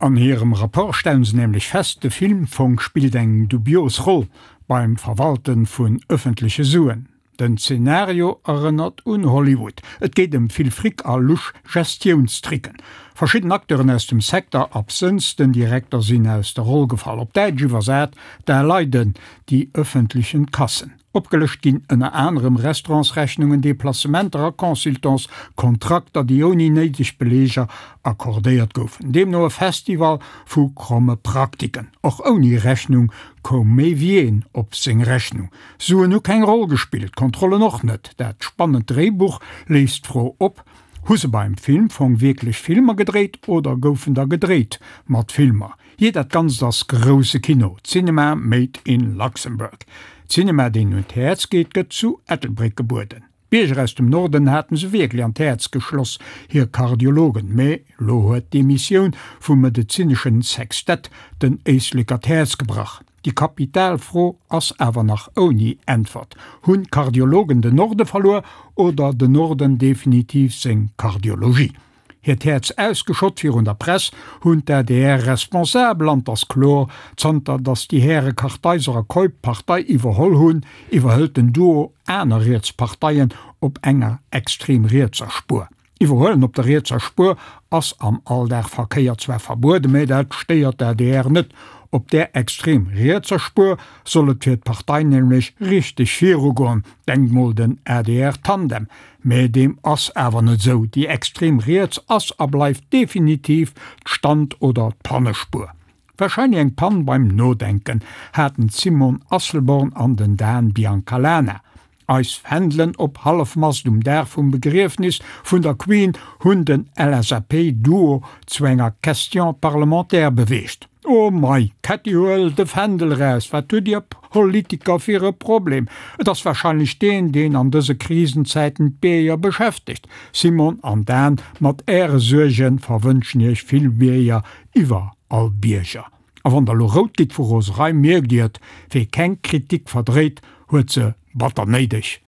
An hirem Rapport stellen se nämlech fest, de Filmfong spillt eng dubios Roll beim Verwalte vun ëffentleche Suen. Den Zenario erënnert un Hollywood. Et geet ëm vill Fric a lusch Gestiounstricken. Verschidden Acteuren aus dem Secteur, absënns den Direkter, sinn aus der Roll gefall. Op Däitsch iwwersat, Da leiden die öffentlichen Kassen. Opgelëscht ginn ënner anerem Restaurantsrechnungen, Deplacementer a Consultants, Kontrakter, déi ouni néideg Beleeger accordéiert goufen. Deemno e Festival vu kromme Praktiken. Och ouni Rechnung koum méi wéi een op seng Rechnung. Suen hu keng Roll gespillt, Kontrollen och net. Dat spannend Dréibuch léisst d'Fro op, Hu se beim Filmfong wierklech Filmer gedréit oder goufen der gedréit mat Filmer? Jee, dat Ganzt ass grousse Kino, Cinema made in Luxembourg. Cinema, deen un d'Häerz geet, gëtt zu Ettelbréck gebueden. D'Bierger aus dem Norden haten se wierklech an d'Häerz geschloss, hir Kardiologen. Mee lo huet d'Emissioun vum medezineschen Sextett den Éisleker d'Häerz gebrach. Déi kapital Fro ass awer nach ouni Äntwert, Hunn d'Kardiologen den Norde verluer oder den Norden definitiv seng Kardiologie? Hiert Häerz ausgeschott virun der Press hunn d'ADR-Responsabel, an 't ass kloer, zanter datt déi Häre Kartheiser a Keup d'Partei iwwerholl hunn, iwwerhëlt den Duo aner riets Parteien op enger extrem rietser Spuer. Iwwerhuelen op der rietser Spuer ass am Alldagverkéier zwar verbueden, mä dat stéiert d'ADR net. Op där extrem rietser Spuer soll et fir d'Partei nämlech richteg virugoen, denkt mol den ADR-Tandem. Mä deem ass awer net esou, déi extrem riets ass a bleift definitiv d'Stand oder d'Pannespuer. Wahrscheinlech eng Pann beim Nodenken haten d'Simone Asselborn an den Dan Biancalana. Eis Fändelen op Hallefmast um Dag vum Begriefnis vun der Queen hunn den LSAP-Duo zu enger Question parlementaire beweegt. Oh mei, Ketty huel de Fändel eraus, wat hutt dir Politiker fir e Problem? Et ass wahrscheinlech deen, deen an dëse Krisenzäiten d'Bierger beschäftegt. Simon an Dan, mat äre Suergen verwënschen iech vill Bierger iwwer all Bierger. A wann der lo rout gitt vu Roserei, mierkt dir et, wee keng Kritik verdréit, huet se batter néideg.